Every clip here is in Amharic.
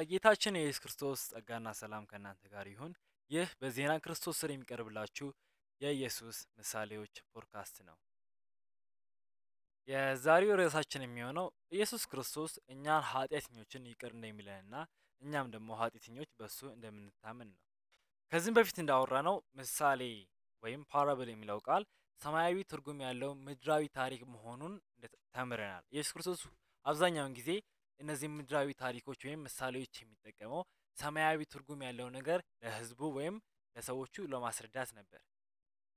የጌታችን የኢየሱስ ክርስቶስ ጸጋና ሰላም ከእናንተ ጋር ይሁን። ይህ በዜና ክርስቶስ ስር የሚቀርብላችሁ የኢየሱስ ምሳሌዎች ፖድካስት ነው። የዛሬው ርዕሳችን የሚሆነው ኢየሱስ ክርስቶስ እኛን ኃጢአተኞችን ይቅር እንደሚለንና እኛም ደግሞ ኃጢአተኞች በሱ እንደምንታመን ነው። ከዚህም በፊት እንዳወራነው ምሳሌ ወይም ፓራብል የሚለው ቃል ሰማያዊ ትርጉም ያለው ምድራዊ ታሪክ መሆኑን ተምረናል። ኢየሱስ ክርስቶስ አብዛኛውን ጊዜ እነዚህ ምድራዊ ታሪኮች ወይም ምሳሌዎች የሚጠቀመው ሰማያዊ ትርጉም ያለው ነገር ለሕዝቡ ወይም ለሰዎቹ ለማስረዳት ነበር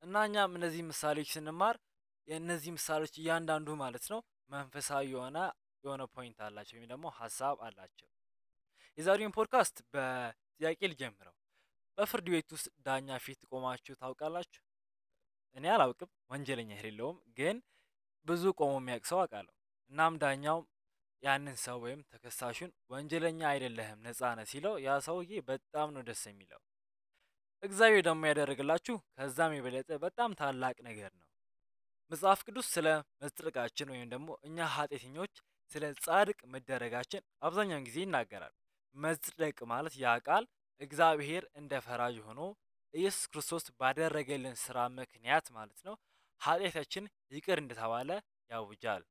እና እኛም እነዚህ ምሳሌዎች ስንማር የእነዚህ ምሳሌዎች እያንዳንዱ ማለት ነው መንፈሳዊ የሆነ ፖይንት አላቸው ወይም ደግሞ ሀሳብ አላቸው። የዛሬውን ፖድካስት በጥያቄ ልጀምረው። በፍርድ ቤት ውስጥ ዳኛ ፊት ቆማችሁ ታውቃላችሁ? እኔ አላውቅም፣ ወንጀለኛ የሌለውም፣ ግን ብዙ ቆሞ የሚያውቅ ሰው አውቃለሁ። እናም ዳኛው ያንን ሰው ወይም ተከሳሹን ወንጀለኛ አይደለህም ነፃ ነህ ሲለው ያ ሰውዬ በጣም ነው ደስ የሚለው። እግዚአብሔር ደግሞ ያደረግላችሁ ከዛም የበለጠ በጣም ታላቅ ነገር ነው። መጽሐፍ ቅዱስ ስለ መጽደቃችን ወይም ደግሞ እኛ ኃጢአተኞች ስለ ጻድቅ መደረጋችን አብዛኛውን ጊዜ ይናገራል። መጽደቅ ማለት ያ ቃል እግዚአብሔር እንደ ፈራጅ ሆኖ ኢየሱስ ክርስቶስ ባደረገልን ስራ ምክንያት ማለት ነው ኃጢአታችን ይቅር እንደተባለ ያውጃል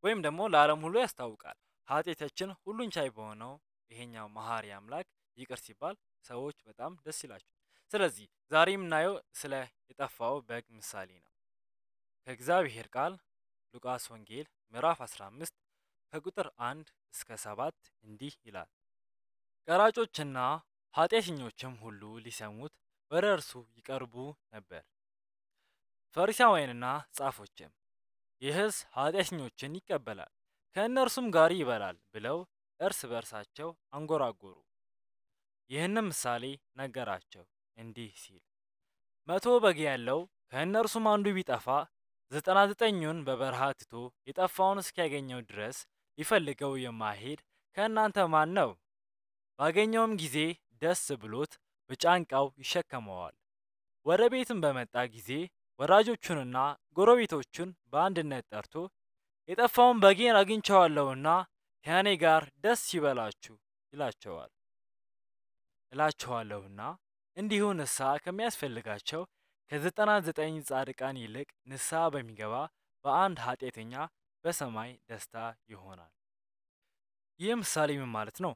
ወይም ደግሞ ለዓለም ሁሉ ያስታውቃል። ኃጢአታችን ሁሉን ቻይ በሆነው ይሄኛው መሐሪ አምላክ ይቅር ሲባል ሰዎች በጣም ደስ ይላቸው። ስለዚህ ዛሬ የምናየው ስለ የጠፋው በግ ምሳሌ ነው። ከእግዚአብሔር ቃል ሉቃስ ወንጌል ምዕራፍ 15 ከቁጥር 1 እስከ 7 እንዲህ ይላል። ቀራጮችና ኃጢአተኞችም ሁሉ ሊሰሙት ወደ እርሱ ይቀርቡ ነበር። ፈሪሳውያንና ጻፎችም ይህስ ኃጢአተኞችን ይቀበላል ከእነርሱም ጋር ይበላል ብለው እርስ በርሳቸው አንጎራጎሩ። ይህንም ምሳሌ ነገራቸው እንዲህ ሲል 100 በግ ያለው ከእነርሱም አንዱ ቢጠፋ 99ኙን በበረሃ ትቶ የጠፋውን እስኪያገኘው ድረስ ሊፈልገው የማይሄድ ከእናንተ ማን ነው? ባገኘውም ጊዜ ደስ ብሎት በጫንቃው ይሸከመዋል። ወደ ቤትም በመጣ ጊዜ ወዳጆቹንና ጎረቤቶቹን በአንድነት ጠርቶ የጠፋውን በጌን አግኝቼዋለሁና ከእኔ ጋር ደስ ይበላችሁ እላችኋለሁና እንዲሁ ንስሐ ከሚያስፈልጋቸው ከ99 ጻድቃን ይልቅ ንስሐ በሚገባ በአንድ ኃጢአተኛ በሰማይ ደስታ ይሆናል። ይህ ምሳሌ ምን ማለት ነው?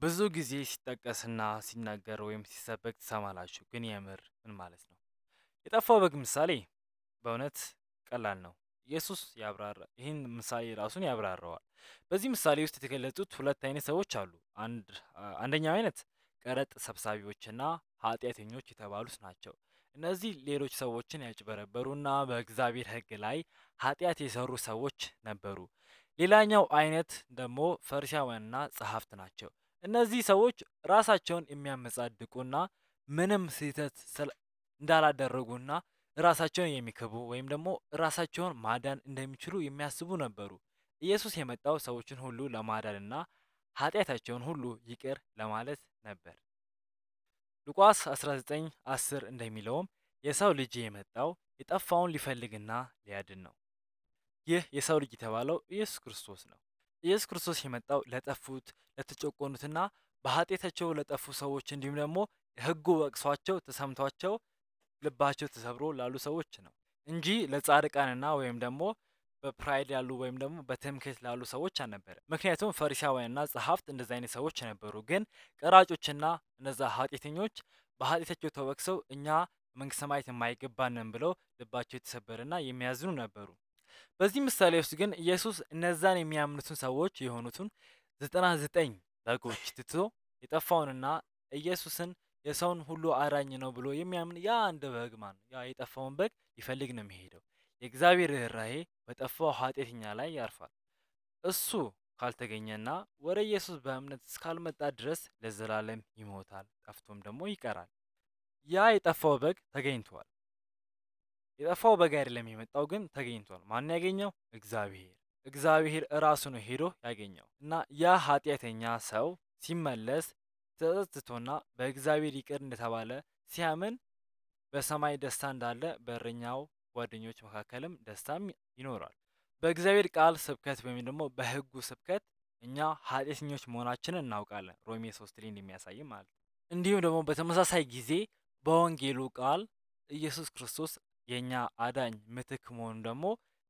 ብዙ ጊዜ ሲጠቀስና ሲናገር ወይም ሲሰበክ ትሰማላችሁ፣ ግን የምር ምን ማለት ነው? የጠፋው በግ ምሳሌ በእውነት ቀላል ነው። ኢየሱስ ይህን ምሳሌ ራሱን ያብራራዋል። በዚህ ምሳሌ ውስጥ የተገለጹት ሁለት አይነት ሰዎች አሉ። አንደኛው አይነት ቀረጥ ሰብሳቢዎችና ኃጢአተኞች የተባሉት ናቸው። እነዚህ ሌሎች ሰዎችን ያጭበረበሩና በእግዚአብሔር ሕግ ላይ ኃጢአት የሰሩ ሰዎች ነበሩ። ሌላኛው አይነት ደግሞ ፈሪሳውያንና ጸሐፍት ናቸው። እነዚህ ሰዎች ራሳቸውን የሚያመጻድቁና ምንም ስህተት እንዳላደረጉና ራሳቸውን የሚክቡ ወይም ደግሞ ራሳቸውን ማዳን እንደሚችሉ የሚያስቡ ነበሩ። ኢየሱስ የመጣው ሰዎችን ሁሉ ለማዳንና ኃጢአታቸውን ሁሉ ይቅር ለማለት ነበር። ሉቃስ 19:10 እንደሚለውም የሰው ልጅ የመጣው የጠፋውን ሊፈልግና ሊያድን ነው። ይህ የሰው ልጅ የተባለው ኢየሱስ ክርስቶስ ነው። ኢየሱስ ክርስቶስ የመጣው ለጠፉት፣ ለተጨቆኑትና በኃጢአታቸው ለጠፉ ሰዎች እንዲሁም ደግሞ ሕጉ ወቅሷቸው ተሰምቷቸው ልባቸው ተሰብሮ ላሉ ሰዎች ነው እንጂ ለጻድቃንና ወይም ደግሞ በፕራይድ ያሉ ወይም ደግሞ በትምክህት ላሉ ሰዎች አልነበረ። ምክንያቱም ፈሪሳውያንና ጸሐፍት እንደዚህ አይነት ሰዎች ነበሩ። ግን ቀራጮችና እነዛ ኃጢአተኞች በኃጢአታቸው ተወቅሰው እኛ መንግስተ ሰማያት የማይገባንን ብለው ልባቸው የተሰበረና የሚያዝኑ ነበሩ። በዚህ ምሳሌ ውስጥ ግን ኢየሱስ እነዛን የሚያምኑትን ሰዎች የሆኑትን 99 በጎች ትቶ የጠፋውንና ኢየሱስን የሰውን ሁሉ አዳኝ ነው ብሎ የሚያምን ያ አንድ በግ ያ የጠፋውን በግ ሊፈልግ ነው የሚሄደው። የእግዚአብሔር ርኅራኄ በጠፋው ኃጢአተኛ ላይ ያርፋል። እሱ ካልተገኘና ወደ ኢየሱስ በእምነት እስካልመጣ ድረስ ለዘላለም ይሞታል፣ ጠፍቶም ደግሞ ይቀራል። ያ የጠፋው በግ ተገኝቷል። የጠፋው በግ አይደለም የመጣው፣ ግን ተገኝቷል። ማን ያገኘው? እግዚአብሔር እራሱ ነው ሄዶ ያገኘው እና ያ ኃጢአተኛ ሰው ሲመለስ ተጸጽቶና በእግዚአብሔር ይቅር እንደተባለ ሲያምን በሰማይ ደስታ እንዳለ በእረኛው ጓደኞች መካከልም ደስታም ይኖራል። በእግዚአብሔር ቃል ስብከት ወይም ደግሞ በሕጉ ስብከት እኛ ኃጢአተኞች መሆናችንን እናውቃለን። ሮሜ 3 ላይ እንደሚያሳይ ማለት ነው። እንዲሁም ደግሞ በተመሳሳይ ጊዜ በወንጌሉ ቃል ኢየሱስ ክርስቶስ የኛ አዳኝ ምትክ መሆኑን ደግሞ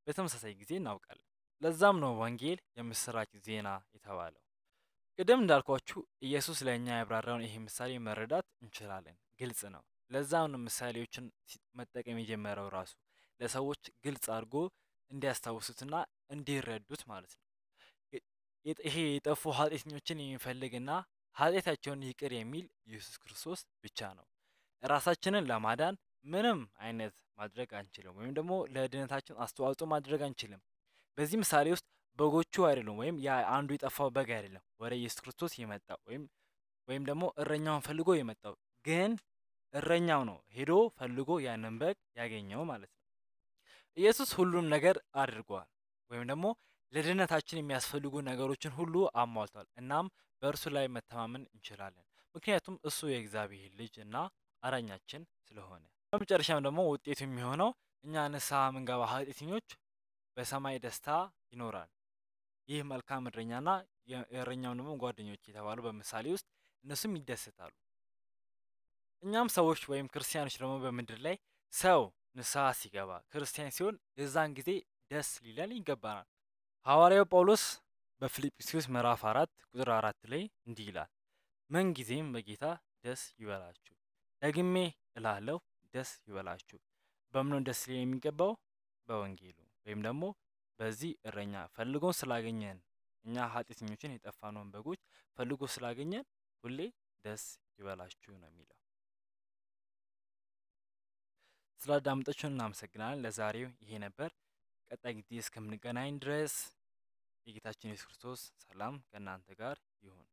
በተመሳሳይ ጊዜ እናውቃለን። ለዛም ነው ወንጌል የምስራች ዜና የተባለው። ቅድም እንዳልኳችሁ ኢየሱስ ለእኛ ያብራራውን ይሄ ምሳሌ መረዳት እንችላለን። ግልጽ ነው። ለዛም ነው ምሳሌዎችን መጠቀም የጀመረው ራሱ ለሰዎች ግልጽ አድርጎ እንዲያስታውሱትና እንዲረዱት ማለት ነው። ይሄ የጠፉ ኃጢአተኞችን የሚፈልግና ኃጢአታቸውን ይቅር የሚል ኢየሱስ ክርስቶስ ብቻ ነው። ራሳችንን ለማዳን ምንም አይነት ማድረግ አንችልም፣ ወይም ደግሞ ለድነታችን አስተዋጽኦ ማድረግ አንችልም። በዚህ ምሳሌ ውስጥ በጎቹ አይደሉም፣ ወይም ያ አንዱ የጠፋው በግ አይደለም ወደ ኢየሱስ ክርስቶስ የመጣው ወይም ደግሞ እረኛውን ፈልጎ የመጣው፣ ግን እረኛው ነው ሄዶ ፈልጎ ያንን በግ ያገኘው ማለት ነው። ኢየሱስ ሁሉም ነገር አድርጓል፣ ወይም ደግሞ ለድነታችን የሚያስፈልጉ ነገሮችን ሁሉ አሟልቷል። እናም በእርሱ ላይ መተማመን እንችላለን፣ ምክንያቱም እሱ የእግዚአብሔር ልጅ እና አዳኛችን ስለሆነ። በመጨረሻም ደግሞ ውጤቱ የሚሆነው እኛ ንስሐ የምንገባ ኃጢአተኞች በሰማይ ደስታ ይኖራል። ይህ መልካም እረኛና የእረኛው ደግሞ ጓደኞች የተባሉ በምሳሌ ውስጥ እነሱም ይደሰታሉ። እኛም ሰዎች ወይም ክርስቲያኖች ደግሞ በምድር ላይ ሰው ንስሐ ሲገባ ክርስቲያን ሲሆን የዛን ጊዜ ደስ ሊለን ይገባናል። ሐዋርያው ጳውሎስ በፊልጵስዩስ ምዕራፍ 4 ቁጥር 4 ላይ እንዲህ ይላል፣ ምን ጊዜም በጌታ ደስ ይበላችሁ። ደግሜ እላለሁ ደስ ይበላችሁ። በምን ደስ ሊል የሚገባው? በወንጌሉ ወይም ደግሞ በዚህ እረኛ ፈልጎን ስላገኘን፣ እኛ ኃጢአተኞችን የጠፋነውን በጎች ፈልጎ ስላገኘን ሁሌ ደስ ይበላችሁ ነው የሚለው። ስላዳመጣችሁን እናመሰግናለን። ለዛሬው ይሄ ነበር። ቀጣይ ጊዜ እስከምንገናኝ ድረስ የጌታችን ኢየሱስ ክርስቶስ ሰላም ከእናንተ ጋር ይሁን።